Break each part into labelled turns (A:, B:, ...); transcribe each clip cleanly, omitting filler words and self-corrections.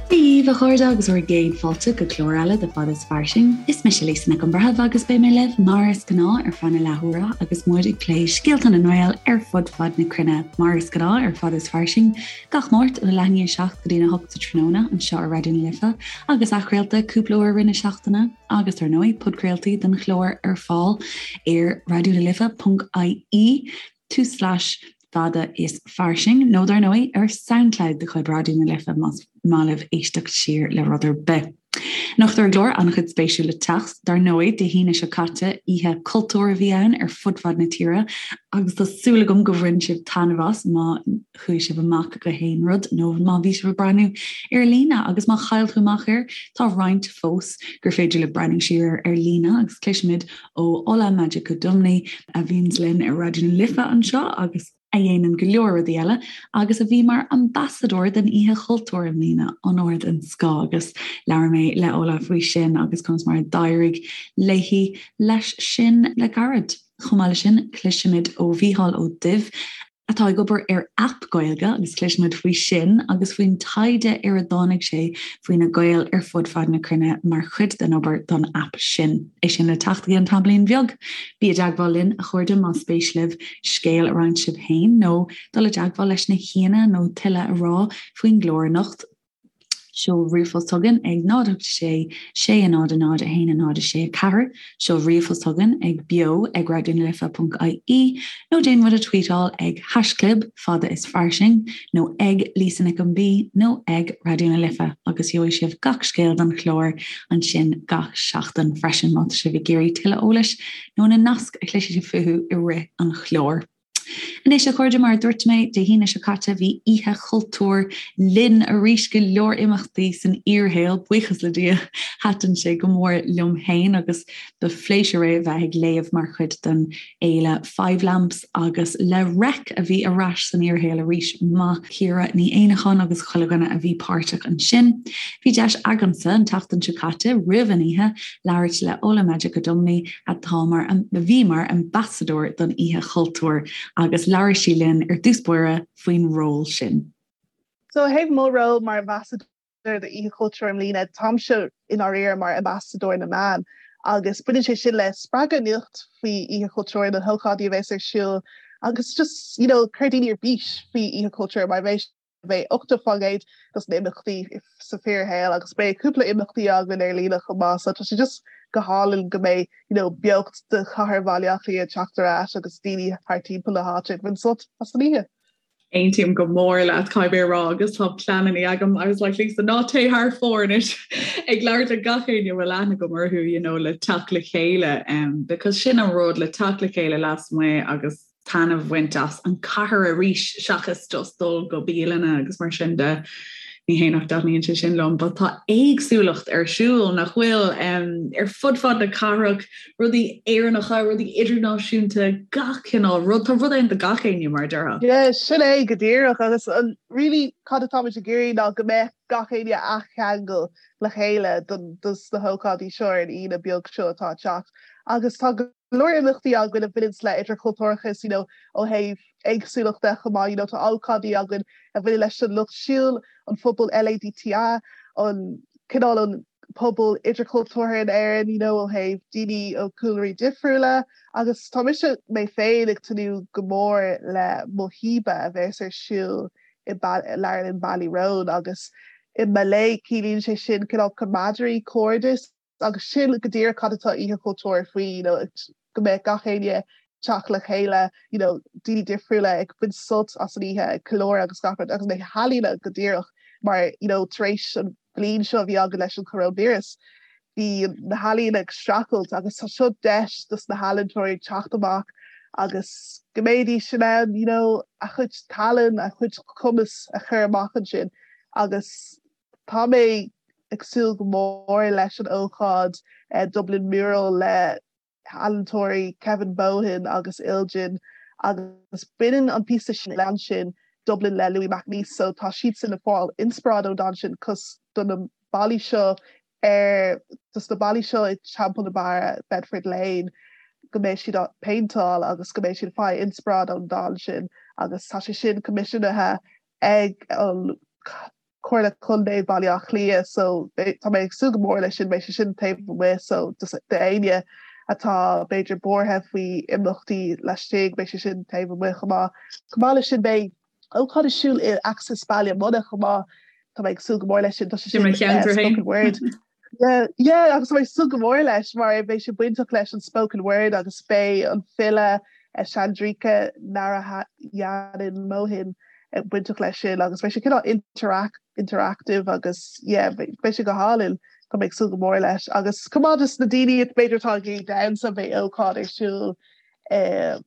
A: Dia daoibh a chairde agus bhur gcéad fáilte go clár eile de Fada is Fairsing. Is mise Lisa Nic an Bhreithimh agus beidh mé libh mar is gnáth ar feadh na leathuaire agus muid ag plé scéalta na nGael ar fud fad na cruinne mar is gnáth ar Fada is Fairsing gach Máirt ó leath i ndiaidh 7 go dtí 8 sa tráthnóna anseo ar Raidió na Life agus athchraolta cúpla uair i rith na seachtaine agus dar ndóigh podchraoltaí den chlár ar fáil ar raidionalife.ie tulslais fada is fairsing, nó dar ndóigh ar Soundcloud de chuid Raidió na Life más maith libh éisteacht siar le rud ar bith. Anocht ar an gclár, an-chuid spéisiúil le teacht. Dar ndóigh, Dé hAoine seo caite, Oíche Cultúir a bhí ann ar fud fad na tíre agus tá súil agam go bhain sibh taitneamh as má chuaigh sibh amach go haon rud nó má bhí sibh ag breathnú ar líne agus má chaill tú amach air, tá roinnt fós gur féidir libh breathnú siar ar ar líne agus cloisfimid ó Ola Majekodunmi a bhíonns linn ar Raidió na Life anseo agus a dhéanann go leor rudaí eile agus a bhí mar ambasadóir den Oíche Chultúir i mbliana, onóir den scoth agus labhair mé le Ola faoi sin agus conas mar a d'éirigh léi leis sin le gairid. Chomh maith leis sin, cloisfimid ó Mhícheál Ó Duibh, atá ag obair ar aip Gaeilge agus cloisfimid faoi sin agus faoin taighde ar a dtáinig sé faoi na Gaeil ar fud fad na cruinne mar chuid den obair don aip sin. É sin le teacht i gceann tamaillín bheag. Bí i dteagmháil linn, a chairde, más spéis libh scéal a roinnt sibh féin nó dul i dteagmháil leis na haíonna nó tuilleadh a rá faoin gclár anocht. Seol ríomhphost chugainn ag 0 8 6 6 0 0 1 0 6 4, seol ríomhphost chugainn ag beo ag raidionalife.ie nó déan muid a tweetáil ag haischlib fada is fairsing nó ag Lisa Nic an B nó ag Raidió na Life agus gheobhaidh sibh gach scéal don chlár ansin gach seachtain freisin má tá sibh ag iarraidh tuilleadh eolais nó na naisc a chloisfidh sibh fúthu i rith an chláir. Anois, a chairde, mar a dúirt mé, Dé hAoine seo caite bhí Oíche Chultúir linn arís, go leor imeachtaí san fhíorshaol, buíochas le Dia. Thaitin sé go mór liom féin agus ba phléisiúr é bheith ag léamh mar chuid den fhéile Five Lamps agus le Reic a bhí ar ais san fhíorshaol arís. Maith Ciara Ní Éanacháin agus chuile dhuine a bhí páirteach ansin. Bhí deis agamsa an tseachtain seo caite, roimh an oíche, labhairt le Ola Majekodunmi, atá mar, a bhí mar ambasadóir don Oíche Chultúir agus labhair sí linn ar dtús báire faoin ról sin.
B: So ó thaobh mo ról mar ambasadóir do Oíche Chultúir i mbliana, táimse i ndáiríre mar ambasadóir na meán agus baineann sé sin le spreagadh nuacht faoi Oíche Chultúir, na hócáidí a bheas ar siúl agus just, you know, cur daoine ar bís faoi Oíche Chultúir mar bheidh Beidh 80% dos na imeachtaí sa fíorshaol agus beidh cúpla imeachtaí againn ar líne chomh maith so tá sé just go hálainn go mbeidh you know beocht de chathair Bhaile Átha Cliath ag teacht ar ais agus daoine thart timpeall na háite ag baint sult as an oíche.
C: Aontaím go mór leat caithfidh mé a rá agus tá pleananna agam I was like Lisa ná téigh thar fóir anois ag labhairt le gach éinne a bhfuil aithne agam orthu you know le teacht le chéile um, because sin an rud le teacht le chéile lasmuigh agus taitneamh a bhaint as an cathair arís seachas just dul go bialanna agus mar sin de. Ní hé nach dtaitníonn sé sin liom, but tá éagsúlacht ar siúl nach bhfuil um, ar fud fad na cathrach, rudaí Éireannacha, rudaí idirnáisiúnta, gach cineál rud, tá rud ann do gach éinne mar a déarfá.
B: Yeah, sin é go díreach agus an really cad atáimid ag iarraidh ná go mbeadh gach éinne á cheangal le chéile don dos na hócáidí seo ar an Aoine beag seo atá ag teacht agus tá go leor imeachtaí againn a bhaineanns le idirchultúrachas, you know, ó thaobh éagsúlachta chomh maith, you know, tá ócáidí againn a bhaineann leis an lucht siúil, an phobal LADTI, an cineál an pobal idirchultúrtha in Éirinn, you know, ó thaobh daoine ó chúlraí difriúla agus tá mise mé féin ag tnúth go mór le Muhiba a bheas ar siúl i Leabharlann Ballyroan agus i Malay ciallaíonn sé sin cineál camaraderie, cairdeas. Agus sin go díreach cad atá Oíche Chultúir faoi, you know, go mbeadh gach éinne teacht le chéile, you know, daoine difriúla ag baint sult as an oíche, ag ceiliúradh agus gach rud, agus na healaíona go díreach mar, you know, tar éis an bhliain seo a bhí againn leis an choróinvíreas, bhí na healaíona ag streachailt agus tá seo deis dos na healaíontóirí teacht amach agus go mbeidís in ann, you know, a chuid tallann, a chuid cumas a chur amach ansin agus Tá mé ag súil go mór leis an ócáid Dublin Mural le healaíontóirí Kevin Bohan agus Iljin agus baineann an píosa sin le ansin Dublin le Louis MacNeice so tá siadsan ag fáil inspioráid ón dán sin cos do na ballaí seo ar dos na ballaí seo i Teampall na Barra, Bedford Lane go mbeidh siad á péinteáil agus go mbeidh siad ag fáil inspioráid ón dán sin agus tá sé sin coimisiúnaithe ag an. Comhairle Contae Bhaile Átha Cliath so tá mé ag súil go mór leis sin, beidh sé sin taobh amuigh so just d'éinne atá b'fhéidir buartha faoi imeachtaí laistigh beidh sé sin taobh amuigh chomh maith. Chomh maith leis sin beidh ócáid ar siúl i Axis Baile Munna chomh maith, tá mé ag súil go mór leis sin, tá sé sin
C: spoken
B: word. Yeah, yeah, agus tá mé ag súil go mór leis mar beidh sé bainteach leis an spoken word agus beidh an file Chandrika Narayanan Mohan bainteach leis sin agus beidh sé cineál interact interactive agus yeah, beidh sé go hálainn tá mé ag súil go mór leis agus chomh maith dos na daoine b'fhéidir atá ag iarraidh damhsa beidh ócáid ar siúl eh,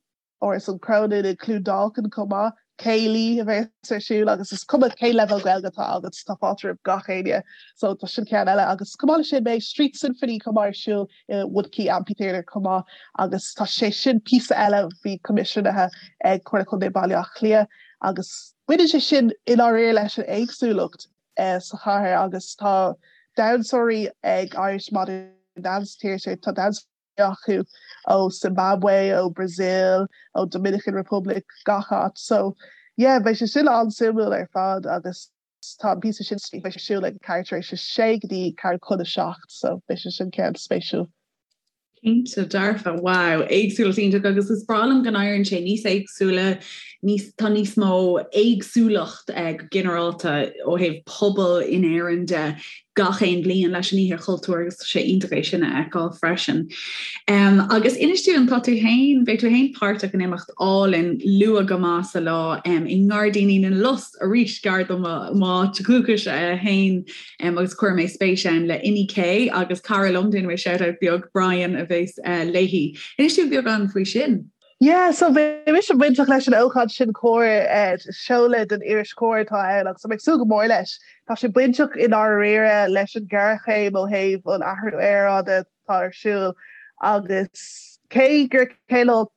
B: Áras an Chrónáin i gCluain Dolcáin chomh maith, céilí a bheas ar siúl agus is cuma cén leibhéal Gaeilge atá agat, tá fáilte roimh gach éinne. So tá sin ceann eile agus chomh maith leis sin beidh Street Symphony chomh maith ar siúl i Woodquay Amphitheatre chomh maith agus tá sé sin píosa eile a bhí coimisiúnaithe ag Comhairle Contae Bhaile Átha Cliath agus baineann sé sin i ndáiríre leis an éagsúlacht sa chathair agus tá damhsóirí ag Irish Modern Dance Theatre, tá damhsóirí acu ó Zimbabwe, ó Brazil, ó Dominican Republic, gach áit. So yeah, beidh sé sin an-suimiúil ar fad agus tá an píosa sin beidh sé ar siúl ag ceathrú tar éis a sé go dtí ceathrú chun a 7, so beidh sé sin ceann spéisiúil.
C: Cinnte dearfa, wow, éagsúlacht iontach agus is breá liom go n-éiríonn sé níos éagsúla, níos, tá níos mó éagsúlacht eh, go ginearálta ó thaobh pobal in Éirinn de gach aon bhliain leis an Oíche Chultúir agus tá sé iontach é sin a fheiceáil freisin. Um, agus inis dúinn tá tú féin, beidh tú féin páirteach in imeacht álainn luath go maith sa lá um, i nGairdíní na Lus arís gar do m'áit dhúchais uh, féin um, agus chuir mé spéis ann le Inni K agus cara liom déanfaidh mé shout-out beag Brian a bheas uh, léi. Inis dúinn beagán faoi sin.
B: Yeah, so beidh mise bainteach leis an ócáid sin Comhar, seoladh den iris Comhar atá ann agus tá mé ag súil go mór leis. Tá sé bainteach i ndáiríre leis an ghéarchéim ó thaobh an athrú aeráide atá ar siúl agus cé gur cineál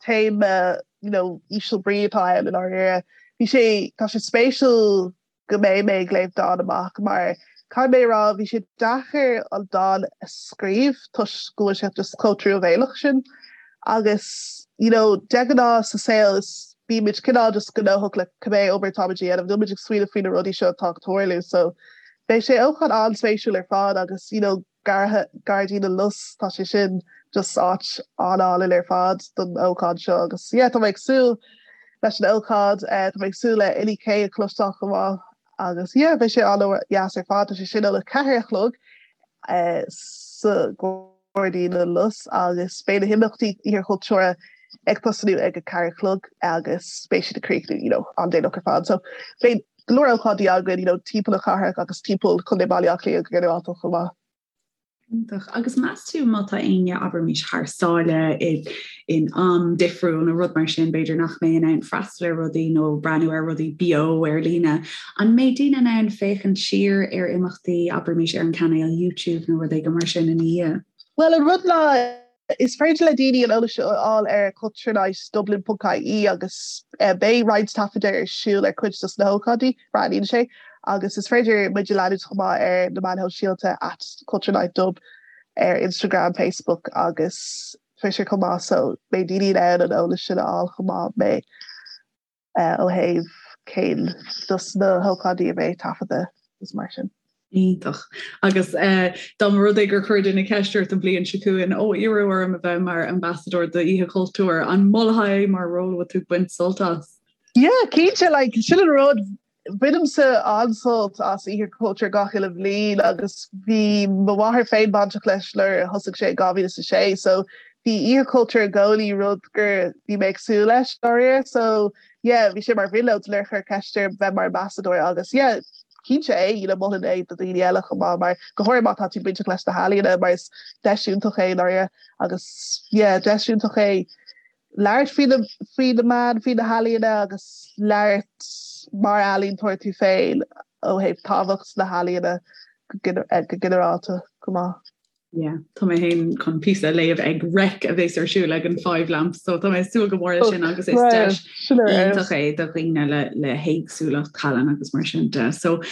B: téama you know, íseal brí atá ann i ndáiríre, bhí sé, tá sé spéisiúil go mbeidh mé ag léamh dán amach mar caithfidh mé a rá bhí sé deacair an dán a scríobh toisc go bhfuil sé just chomh truamhéalach sin agus you know de ghnáth sa saol is bímid cineál just gnóthach le cibé obair atáimid a dhéanamh níl muid ag smaoineamh faoi na rudaí seo atá ag tarlú so beidh sé ócáid an-spéisiúil ar fad agus you know Gairdín na Lus, tá sé sin just áit an-álainn ar fad don ócáid seo agus yeah tá mé ag súil leis an ócáid, tá mé ag súil le Inni K a chloisteáil chomh maith agus yeah beidh sé an-dheas ar fad, tá sé sin óna 4 a chlog sa Ghairdín na Lus agus beidh na himeachtaí Oíche Chultúir ag tosnú ag a 4 a chlog agus beidh siad ag críochnú you know an-déanach ar fad so beidh go leor ócáidí againn you know timpeall na cathrach agus timpeall Chontae Bhaile Átha Cliath go ginearálta chomh maith.
C: Iontach. Agus meas tú má tá éinne, abraimis, thar sáile i in am difriúil nó rud mar sin, b'fhéidir nach mbeidh in ann freastal ar rudaí nó breathnú ar rudaí beo ar líne, an mbeidh daoine in ann féachaint siar ar imeachtaí, abraimis, ar an cainéal YouTube nó rud éigin mar sin ina dhiaidh?
B: Bhuel, an rud ná Is féidir le daoine an eolas seo a fháil ar culturenightdublin.ie agus beidh roinnt taifeadadh ar siúl ar cuid dos na hócáidí, breathnaíonn sé, agus is féidir muid a leanúint chomh maith ar na meáin shóisialta at culturenightdub ar Instagram, Facebook agus Twitter chomh maith so beidh daoine in ann an eolas sin a fháil chomh maith mé. ó thaobh cén dos na hócáidí a bheidh taifeadta is mar sin.
C: Iontach. Agus dá mba rud é gur chuir duine ceist ort an bhliain seo chugainn, ó iarradh orm a bheith mar ambassadóir d'Oíche Chultúir, an molfá é mar ról a bhfuil tú ag baint sult as?
B: Yeah, cinnte, like, sin an rud, bainimse an-sult as Oíche Chultúir gach uile bhliain agus bhí mo mháthair féin bainteach leis nuair a thosaigh sé in 2006 so bhí Oíche Chultúir i gcónaí rud gur bhí mé ag súil leis dáiríre so yeah bhí sé mar bhrionglóid nuair a chuir ceist orm bheith mar ambassadóir agus yeah cinnte é you know mholfainn é do dhaoine eile chomh maith mar go háirithe má tá tú bainteach leis na healaíona mar is deis iontach é dáiríre agus yeah deis iontach é labhairt faoi na faoi na meáin faoi na healaíona agus labhairt mar ealaíontóir tú féin ó thaobh tábhacht na healaíona go ginearálta chomh maith.
C: Yeah, tá mé féin chun píosa a léamh ag Reic a bheas ar siúl ag an Five Lamps, so tá mé ag súil go mór leis sin agus is deis iontach é do dhaoine le le héagsúlacht tallann agus mar sin de. So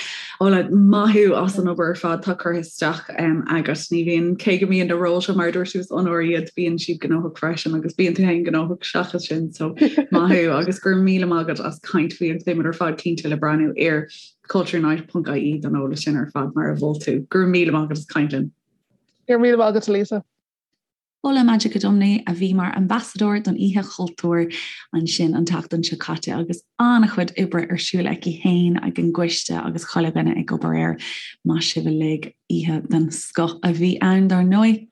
C: Ola, maith thú as an obair ar fad atá curtha isteach um, agat. Ní bhíonn cé go mbíonn na róil seo mar dúirt tú is onóir iad bíonn siad gnóthach freisin agus bíonn tú féin gnóthach seachas sin so maith thú agus go raibh míle maith agat as caint faoi agus beimid ar fad cinnte le breathnú ar culturenight.ie don eolas sin ar fad mar a mhol tú. Go raibh míle maith agat as caint linn.
B: Go raibh míle maith agat Lisa.
A: Ola Majekodunmi a bhí mar ambasadóir don Oíche Chultúir ansin an tseachtain seo caite agus an-chuid oibre ar siúl aici féin ag an gcoiste agus chuile dhuine ag obair air. Maith sibh uilig, oíche den scoth a bhí ann dar ndóigh.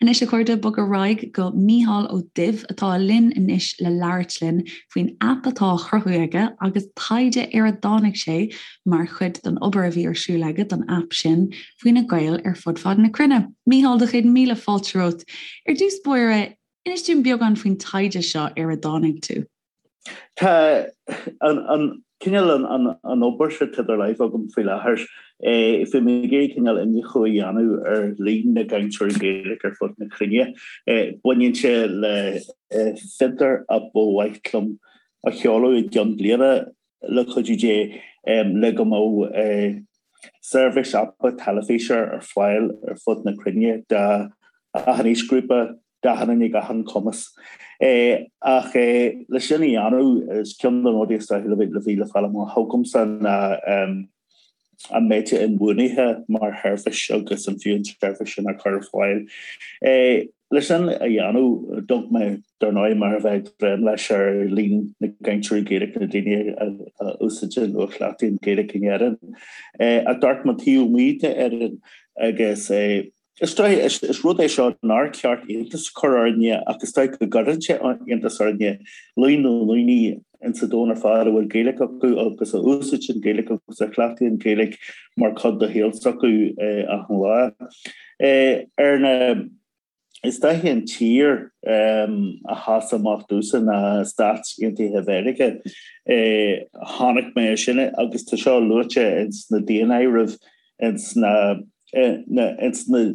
A: Anois a chairde, bog ar aghaidh go Mícheál Ó Duibh atá linn anois le labhairt linn faoin aip atá á chruthú aige agus taighde ar a dtáinig sé mar chuid den obair a bhí ar siúl aige don aip sin faoi na Gaeil ar fud fad na cruinne. Mícheál, do chéad míle fáilte romhat. Ar dtús báire, inis dúinn beagán faoin taighde seo ar a dtáinig tú.
D: Tá an cineál an obair seo atá idir láimh agam faoi láthair. Bhí mé ag iarraidh cineál iniúchadh a dhéanamh ar líon na gcainteoirí Gaeilge ar fud na cruinne. Baineann sé le fiontar a ba mhaith liom a sheoladh i gceann bliana le cuidiú Dé le go mbeadh seirbhís aipe teilifíse ar fáil ar fud na cruinne d'achan aoisghrúpa, d'achan duine ag achan cumas. Ach le sin a dhéanamh, is ceann de na rudaí is dóichí le bhí le fáil amach agamsa ná an mbeadh sé inbhuanaithe mar sheirbhís agus an fiú an tseirbhís sin a chur ar fáil. Le sin a dhéanamh, d'amharc mé, dar ndóigh, mar a bheadh ag dréim leis ar líon na gcainteoirí Gaeilge, na daoine a úsáideann nó a chleachtaíonn Gaeilge in Éirinn. Ach d'amharc mé taobh amuigh d'Éirinn agus Is dóigh, is rud é seo nár cheart iontas a chur orainne ach is dóigh go gcuireann sé iontas orainne, líon na ndaoine insa domhan ar fad a bhfuil Gaeilge acu agus a úsáideann Gaeilge agus a chleachtaíonn Gaeilge mar chuid de shaol s'acu achan lá. Ar na, is dóiche an tír a sheas amach domhsa ná Stáit Aontaithe Mheiriceá. Chonaic mé sin agus tá seo luaite ins na daonáirimh ins na ins na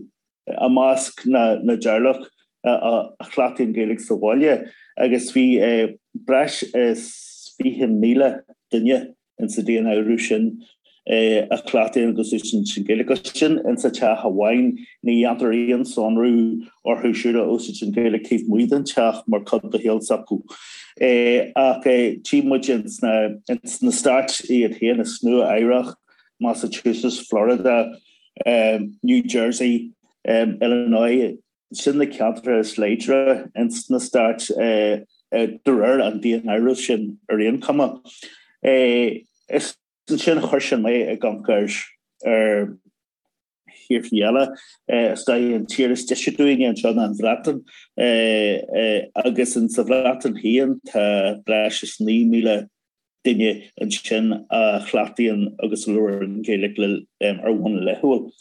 D: i measc na na dteaghlach a chleachtaíonn Gaeilge sa bhaile agus bhí breis is 20,000 duine insa daonáireamh sin a chleachtaíonn agus úsáideann Gaeilge. Agus sin insa teach amháin, ní dhéantar aon sonrú orthu siúd a úsáideann Gaeilge taobh amuigh den teach mar chuid de shaol s'acu. Ach tchí muid ins na Stáit iad féin, is Nua Eabhrac, Massachusetts, Florida, New Jersey, Illinois, sin na ceantracha is láidre ins na stáit de réir an daonáirimh sin ar aon chuma. Is ansin chuir sin mé ag amharc ar thíortha eile. Is dóigh an tír is deise dúinne anseo ná an Bhreatain agus insa Bhreatain féin tá breis is 9,000 duine ansin a chleachtaíonn agus a labhraíonn Gaeilge ar bhonn laethúil.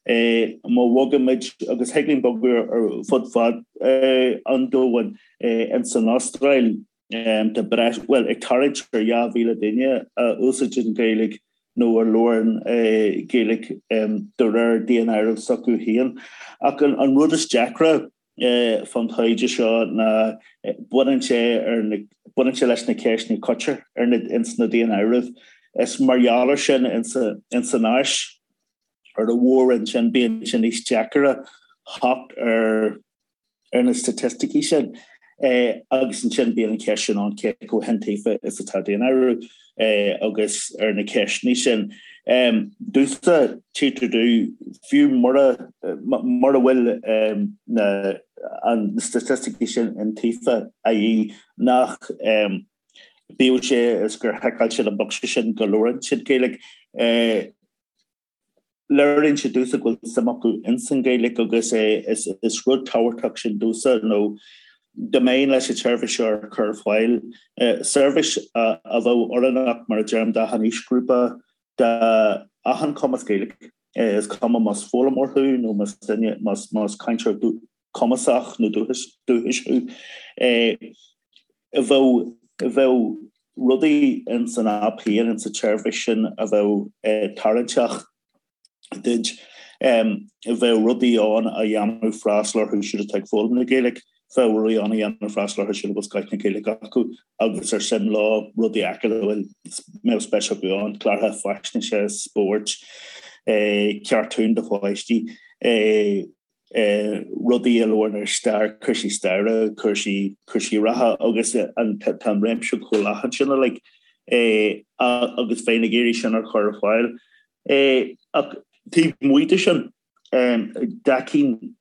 D: Má bhogaimid, agus thig linn bogadh ar fud fad an domhain, ins an Astráil tá breis, bhuel, ag tarraingt ar 2,000 duine a úsáideann Gaeilge nó a labhrann Gaeilge de réir daonáireamh s'acu féin. Ach an rud is deacra, fán taighde seo ná baineann sé ar na, baineann sé leis na ceisteanna a chuirtear ar na, ins na daonáirimh. Is mar gheall ar sin ins ins an Áis ar an mhór-roinn sin bíonn sé níos deacaire theacht ar ar na staitisticí sin. Agus ansin bíonn an cheist sin ann cé chomh hiontaofa is atá daonáireamh agus ar na ceisteanna sin. Domhsa, tchítear domh, fiú mura mura bhfuil na na staitisticí sin iontaofa, i.e. nach bíodh sé is gur thiceáil siad an bocsa sin go labhrann siad Gaeilge, Léiríonn sé domhsa go bhfuil suim acu ins an Ghaeilge agus is rud tábhachtach sin domhsa nó dá mbeinn leis an tseirbhís seo a chur ar fáil, seirbhís a bheadh oiriúnach mar a deirim d'achan aoisghrúpa, d'achan chumas Gaeilge, is cuma más foghlaimeoir thú nó más duine, más cainteoir cumasach nó dúchais thú, bheadh bheadh rudaí ins an aip féin, ins an tseirbhís sin a bheadh tarraingteach duit. Bheadh rudaí ann a dhéanfadh freastal orthu siúd atá ag foghlaim na Gaeilge, bheadh rudaí ann a dhéanfadh freastal orthu siúd a bhfuil scoith na Gaeilge acu agus ar suim leo rudaí acu a bhfuil mbeadh spéis acu ann, cláracha faisnéise, spóirt, cartúin do pháistí, rudaí a labhrann ar stair, cúrsaí staire, cúrsaí cúrsaí reatha agus an tá an réimse chomh leathan sin uilig agus bheinn ag iarraidh sin a chur ar fáil. Ach taobh amuigh de sin, d'fheicfinn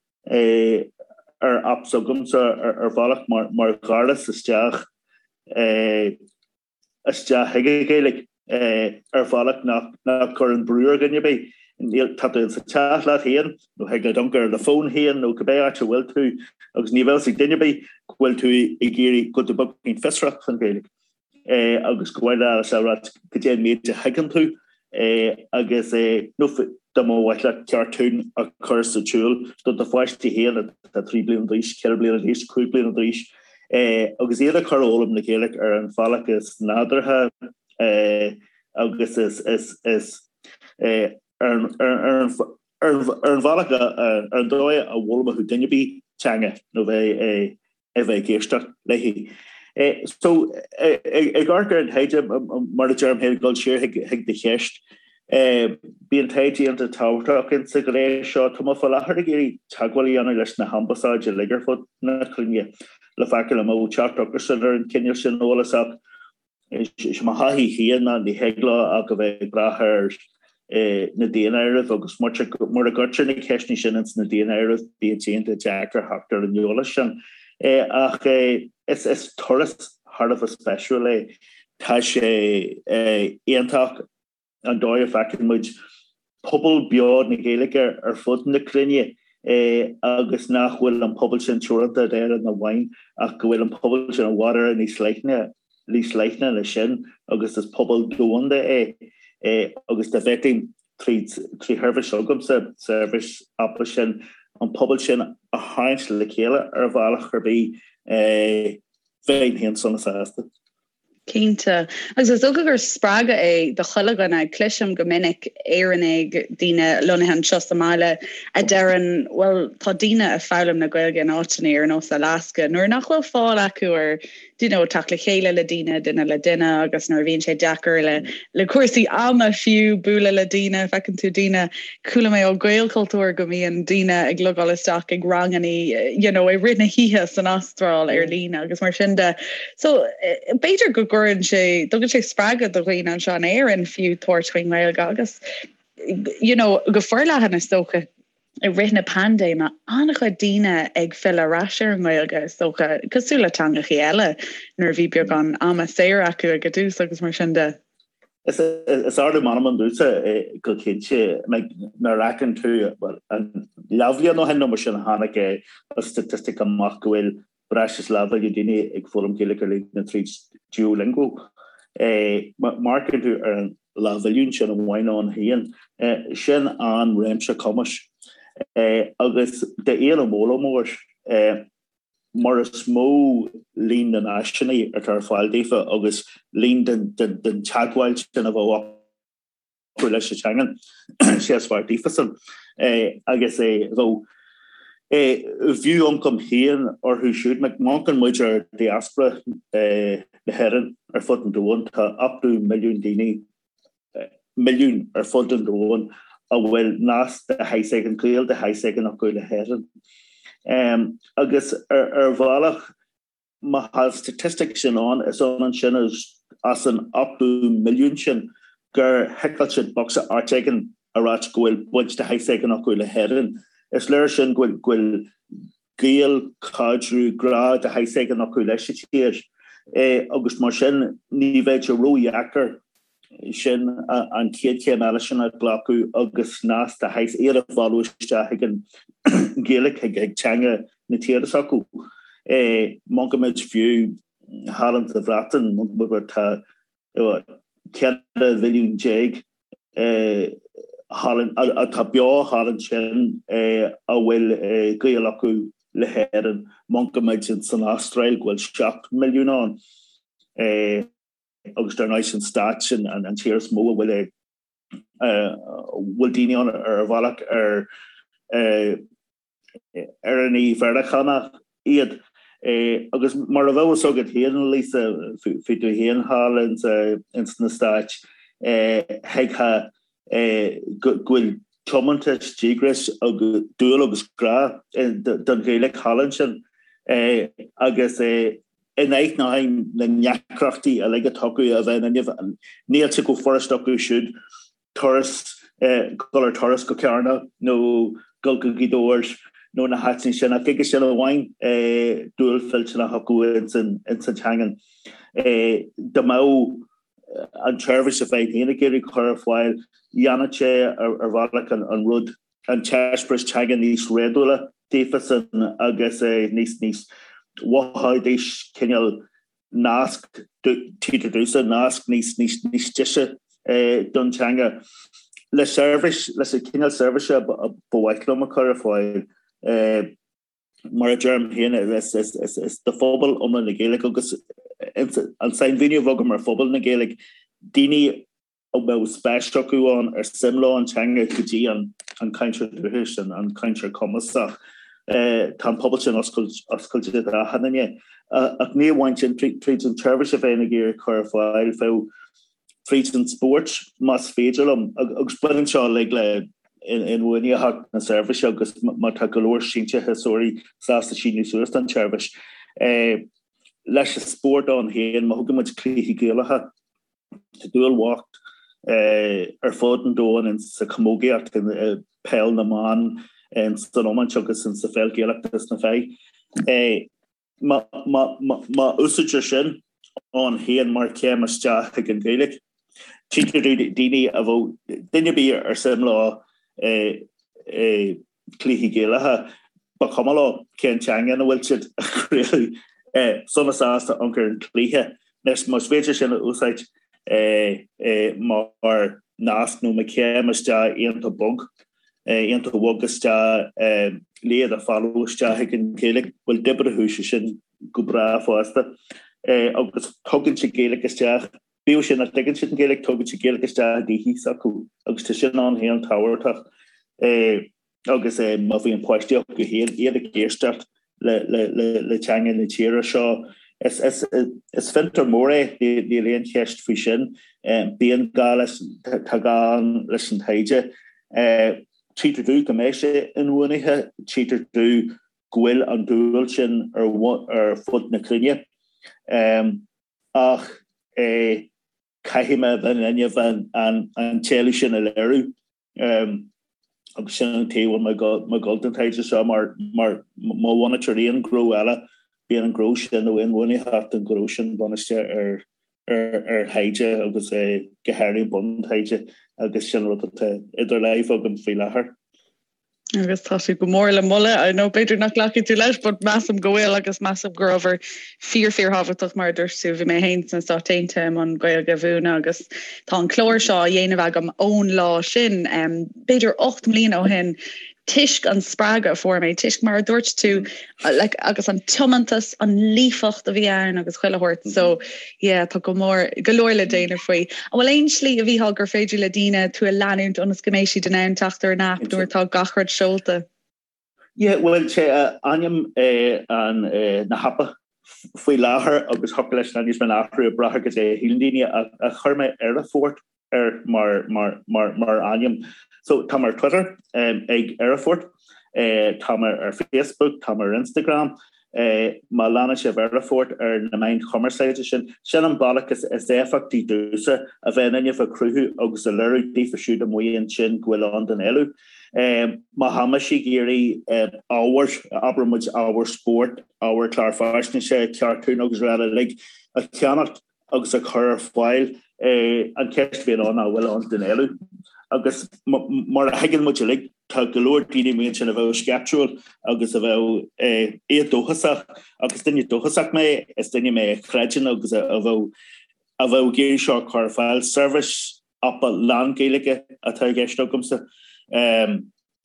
D: ar aip s'agamsa ar bhealach mar dhoras isteach isteach chuig an Ghaeilge ar bhealach nach gcuireann brú ar dhuine ar bith. Níl, tá tú sa teach leat féin nó thig leat amharc ar do fón féin nó cibé áit a bhfuil tú agus ní bheadh a fhios ag duine ar bith go bhfuil tú ag iarraidh go bhfuil tú beagáinín fiosrach faoin Ghaeilge. agus go bhfuil leat a rá goidé an méid a thuigeann tú agus nó dá mba mhaith leat cartún a chur sa tsiúl do do pháistí féin atá 3 bliana d'aois, 4 bliana d'aois, 5 bliana d'aois agus iad a chur a fhoghlaim na Gaeilge ar an bhealach is nádúrtha agus is is is ar an ar an bhealach ar an dóigh a bhfoghlaimeodh duine ar bith teanga nó bheith a bheith ag éisteacht léi. So, ag amharc ar an taighde, mar a deirim féin, ag dul siar chuig do cheist, bíonn taighde iontach tábhachtach insa ghné seo. Tá mé faoi láthair ag iarraidh teagmháil a dhéanamh leis na hambasáid uilig ar fud na cruinne le feiceáil an mbeadh teacht acusan ar an chineál sin eolais ach Is é mo thaithí féin ná ní thig leo ach a bheith ag brath ar na daonáirimh agus mura gcuirtear na ceisteanna sin ins na daonáirimh bíonn sé iontach deacair theacht ar an eolas sin. Ach is turas thar a bheith spéisiúil é. Tá sé iontach. an dóigh a bhfeiceann muid pobal beo na Gaeilge ar fud na cruinne agus nach bhfuil an pobal sin teoranta d'Éirinn amháin ach go bhfuil an pobal sin i bhfad Éireann níos leithne níos leithne ná sin agus is pobal domhanda é agus dá bhféadfainn tríd trí sheirbhís s'agamsa, seirbhís aipe sin, an pobal sin a tharraingt le chéile ar bhealach ar bith bheinn féin sona sásta.
A: Cinnte. Agus is dócha gur spreagadh é do chuile dhuine. Cloisim go minic Éireannaigh, daoine lonnaithe anseo sa mbaile, a deireann, bhuel, tá daoine ag foghlaim na Gaeilge in áiteanna ar nós Alaska nuair nach bhfuil fáil acu ar, do you know, teacht le chéile le daoine, duine le duine, agus nuair a bhíonn sé deacair le, le cúrsaí ama fiú bualadh le daoine, feiceann tú daoine, chuala mé ó Ghaelchultúr go mbíonn daoine ag logáil isteach ag ranganna, you know, i rith na hoíche san Astráil ar líne agus mar sin de. So, b'fhéidir go gcuireann sé, dtugann sé spreagadh do dhaoine anseo in Éirinn fiú tabhairt faoin nGaeilge agus, you know, go forleathan is dócha i rith na paindéime, an-chuid daoine ag filleadh ar ais ar an nGaeilge is dócha, cosúil le teangachaí eile nuair a bhí beagán ama saor acu ag an dtús agus mar sin de.
D: Is ardú meanman domhsa go cinnte nuair a fheiceann tú, bhuel, an leathbhliain ó shin nó mar sin a tháinig an staitistic amach go bhfuil breis is leathmhilliún daoine ag foghlaim Gaeilge ar líne tríd Duolingo. Má amharcann tú ar an leathmhilliún sin amháin ann féin, sin an-réimse cumais. Agus d'aon fhoghlaimeoir, mar is mó líon na n-áiseanna atá ar fáil daofa agus líon den teagmháil sin a bheadh acu leis an teanga, sé is fearr daofasan agus bheadh b'fhiú ioncam féin orthu siúd. Má amharcann muid ar diaspora na hÉireann ar fud an domhain, tá 80 milliún daoine, milliún ar fud an domhain a bhfuil nasc de shaghas éigin, gaol de shaghas éigin acu le hÉirinn. Agus ar bhealach, Má tá an staitistic sin ann, is ionann sin is as an 80 milliún sin gur thiceáil siad bocsa áit éigin a ráit go bhfuil baint de shaghas éigin acu le hÉirinn. Is léir sin go bhfuil gaol, caidreamh, grá de shaghas éigin acu leis an tír agus mar sin ní bheidh sé ródheacair sin an chéad chéim eile sin a ghlacadh agus nasc de shaghas iad a mhealladh isteach chuig an Ghaeilge, chuig teanga na tíre s'acu. Má amharcann muid fiú thall sa Bhreatain, tá 14 mhilliún thall atá beo thall ansin a bhfuil gaol acu le hÉirinn. Má amharcann muid san Astráil go bhfuil 7 milliún ann. agus dar ndóigh san Stáit sin an tír is mó a bhfuil. Bhfuil daoine ann ar bhealach ar Éireannaigh Mheiriceánach iad. Agus mar a bheadh fhios agat féin, Lisa, bhí tú féin thall ins na Stáit, thuigfeá go bhfuil tiomantas, díograis agus dúil agus grá don Ghaeilge thall ansin. Agus in ainneoin na ndeacrachtaí uilig atá acu a bheith in inmhe, níl sé chomh furast acu siúd turas, dul ar turas go Carna nó dul go Gaoth Dobhair nó na háiteanna sin ach chuige sin amháin dúil mhillteanach acu ins an teangain. Dá mbeadh an tseirbhís a bheinn féin ag iarraidh cur ar fáil, dhéanfadh sé ar bhealach an rud, an t-eispéireas teanga níos réadúla daofasan agus níos níos mhothóidís cineál nasc, títear domhsa, nasc níos níos níos deise don teanga. Le seirbhís, leis an cineál seirbhíse ba mhaith liom a chur ar fáil, mar a deirim féin, is do phobal iomlán na Gaeilge agus an sainmhíniú a bheadh agam ar phobal na Gaeilge, daoine a mbeadh spéis acu ann, ar suim leo an teanga go dtí an cainteoir dúchais, an cainteoir cumasach. Tá an pobal sin oscailte d'achan duine. Ach ní amháin sin, tríd an tseirbhís a bheinn ag iarraidh cur ar fáil, bheadh tríd an spórt, más féidir liom, agus baineann seo uilig le inbhuanaitheacht na seirbhíse agus má tá go leor síntiúsóirí sásta síniú suas don tseirbhís. Leis an spórt ann féin, má thugann muid cluichí Gaelacha, Tá dúil bhocht ar fud an domhain sa chamógaíocht, i peil na mban, san iomáint agus sa pheil Ghaelach dos na fir. Má úsáidtear sin ann féin mar chéim isteach chuig an Ghaeilge, tchítear daoine a bheadh, duine ar bith ar suim leo cluichí Gaelacha, ba chuma leo cén teanga ina bhfuil siad á gcraoladh, sona sásta amharc ar an chluiche. Anois, más féidir sin a úsáid mar nasc nó mar chéim isteach iontach bog, iontach bhog isteach le iad a mhealladh isteach chuig an Ghaeilge, bhuel d'oibreodh sé sin go breá fosta. Agus tugann sé Gaeilge isteach, bíodh sin nach dtuigeann siad an Ghaeilge, tugann sé Gaeilge isteach i dtithe s'acu agus tá sin ann féin tábhachtach agus má bhíonn páistí acu féin, iad ag éisteacht le teanga na tíre seo. Is fiontar mór é, níl aon cheist faoi sin. Bíonn gá leis, tá gá ann leis an taighde. Tchítear domh go mbeidh sé inbhuanaithe, tchítear domh go bhfuil an dúil sin ar fud na cruinne. Ach caithfidh mé a bheith in inmhe an t-éileamh sin a léiriú agus sin an taobh a bhfuil mé ag dul don taighde seo mar má bhunaítear aon ghnó eile bíonn an gnó sin nó inbhuanaitheacht an ghnó sin bunaithe ar ar thaighde agus go háirithe buntaighde agus sin rud atá idir láimh agam faoi láthair.
C: Agus tá sé go mór le moladh. I know b'fhéidir nach nglacfaidh tú leis, but measaim go bhfuil agus measaim gur obair fíor fíorthábhachtach mar a dúirt tú, bhí mé féin sna Stáit Aontaithe i mbun Gaeilge a mhúineadh agus tá an clár seo á dhéanamh agam ón lá sin, b'fhéidir 8 mbliana ó shin, toisc an spreagadh a fuair mé, toisc mar a dúirt tú, like, agus an tiomantas, an líofacht a bhí ann agus chuile shórt. So, yeah, tá go mór, go leor le déanamh faoi. An bhfuil aon slí a Mhícheál gur féidir le daoine tú a leanúint ionas go mbeidh siad in ann teacht ar an aip nuair atá gach rud seolta?
D: Yeah, bhuel, sé ainm an na haipe faoi láthair agus thiocfadh leis an ainm a athrú ag brath ar cad é a shíleann daoine ach chuir mé Éire-Fort air mar mar mar mar ainm. So tá mé ar Twitter ag Éire-Fort, tá mé ar Facebook, tá mé ar Instagram. Má leanann sibh Éire-Fort ar na meáin chumarsáide sin, sin an bealach is is éifeachtaí domhsa a bheith in inmhe a chruthú agus a léiriú daofa siúd amuigh ansin go bhfuil ann don éileamh. Má tá mise ag iarraidh ábhar, abair muid ábhar spóirt, ábhar clár faisnéise, cartún agus araile uilig a cheannacht, agus a chur ar fáil. An cheist a bhíonn ann ná an bhfuil ann don éileamh. Agus mar a thuigeann muid uilig, tá go leor daoine amuigh ansin a bheadh sceiptiúil agus a bheadh éadóchasach agus duine dóchasach mé, is duine mé a chreideann agus a bheadh a bheadh ag iarraidh seo a chur ar fáil. Seirbhís aipe lán-Ghaeilge atá i gceist agamsa.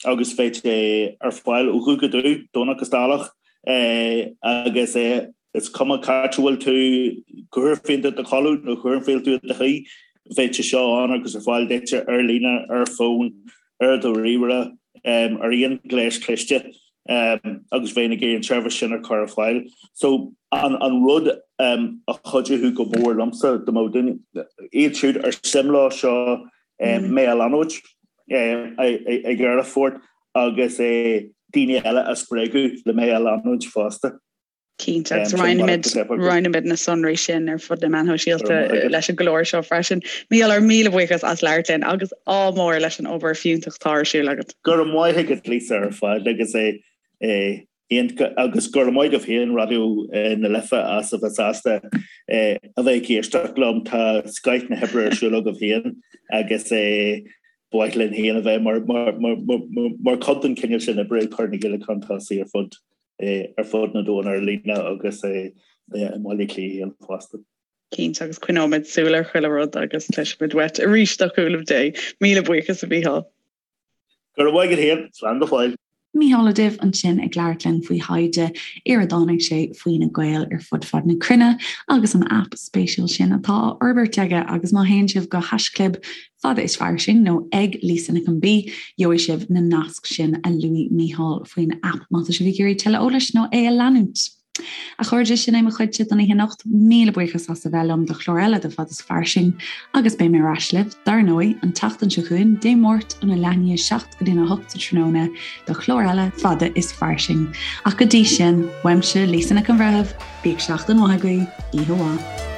D: agus beidh sé ar fáil ó dhubh go dubh, Domhnach is Dáileach, agus is cuma cá háit a bhfuil tú, cá huair a bhíonn tú i do chodladh nó cá huair a bhíonn tú i do shuí. Bheadh sé seo ann agus ar fáil duit ar líne, ar fón, ar do ríomhaire, ar aon ghléas cliste agus bheinn ag iarraidh an tseirbhís sin a chur ar fáil. So an rud a chuideodh go mór liomsa dá mbeadh duine, iad siúd ar suim leo seo mé a leanúint ag Aerfort agus daoine eile a spreagadh le mé a leanúint fosta.
A: Cinnte, agus roinnfimid na sonraí sin ar fud na meán shóisialta leis an gclár seo freisin. Mícheál, ár míle buíochas as labhairt linn agus ádh mór leis an obair fiúntach atá ar siúl agat.
D: Go raibh maith agat Lisa ar fad agus é agus go raibh maith agaibh féin Raidió na Life as a bheith sásta a bheith ag éisteacht liom. Tá scoith na hoibre ar siúl agaibh féin agus ba mhaith linn féin a bheith mar chuid den chineál sin oibre ag cur na Gaeilge chun tosaigh ar fud ar fud an domhain ar líne agus i mBaile Átha Cliath féin fosta.
A: Cinnte, agus coinneoimid súil ar chuile rud agus cloisfimid uait arís le cúnamh Dé. Míle buíochas a Mhícheáil.
D: Go raibh maith agat féin. Slán go fóill.
A: Mícheál Ó Duibh ansin ag labhairt linn faoi thaighde ar a dtáinig sé faoi na Gaeil ar fud fad na cruinne agus an aip spéisiúil sin atá á fhorbairt aige agus má théann sibh go haischlib Fada is Fairsing nó ag Lisa Nic an B, gheobhaidh sibh na naisc sin a luaigh Mícheál faoin aip má tá sibh ag iarraidh tuilleadh eolais nó é a leanúint. A chairde, sin é mo chuidse don oíche anocht. Míle buíochas as a bheith liom do chlár eile de Fada is Fairsing agus beidh mé ar ais libh, dar ndóigh, an tseachtain seo chugainn, Dé Máirt óna leath i ndiaidh a 7 go dtí a 8 sa tráthnóna do chlár eile Fada is Fairsing. Ach go dtí sin, uaimse, Lisa Nic an Bhreithimh, bíodh seachtain mhaith agaibh, oíche mhaith.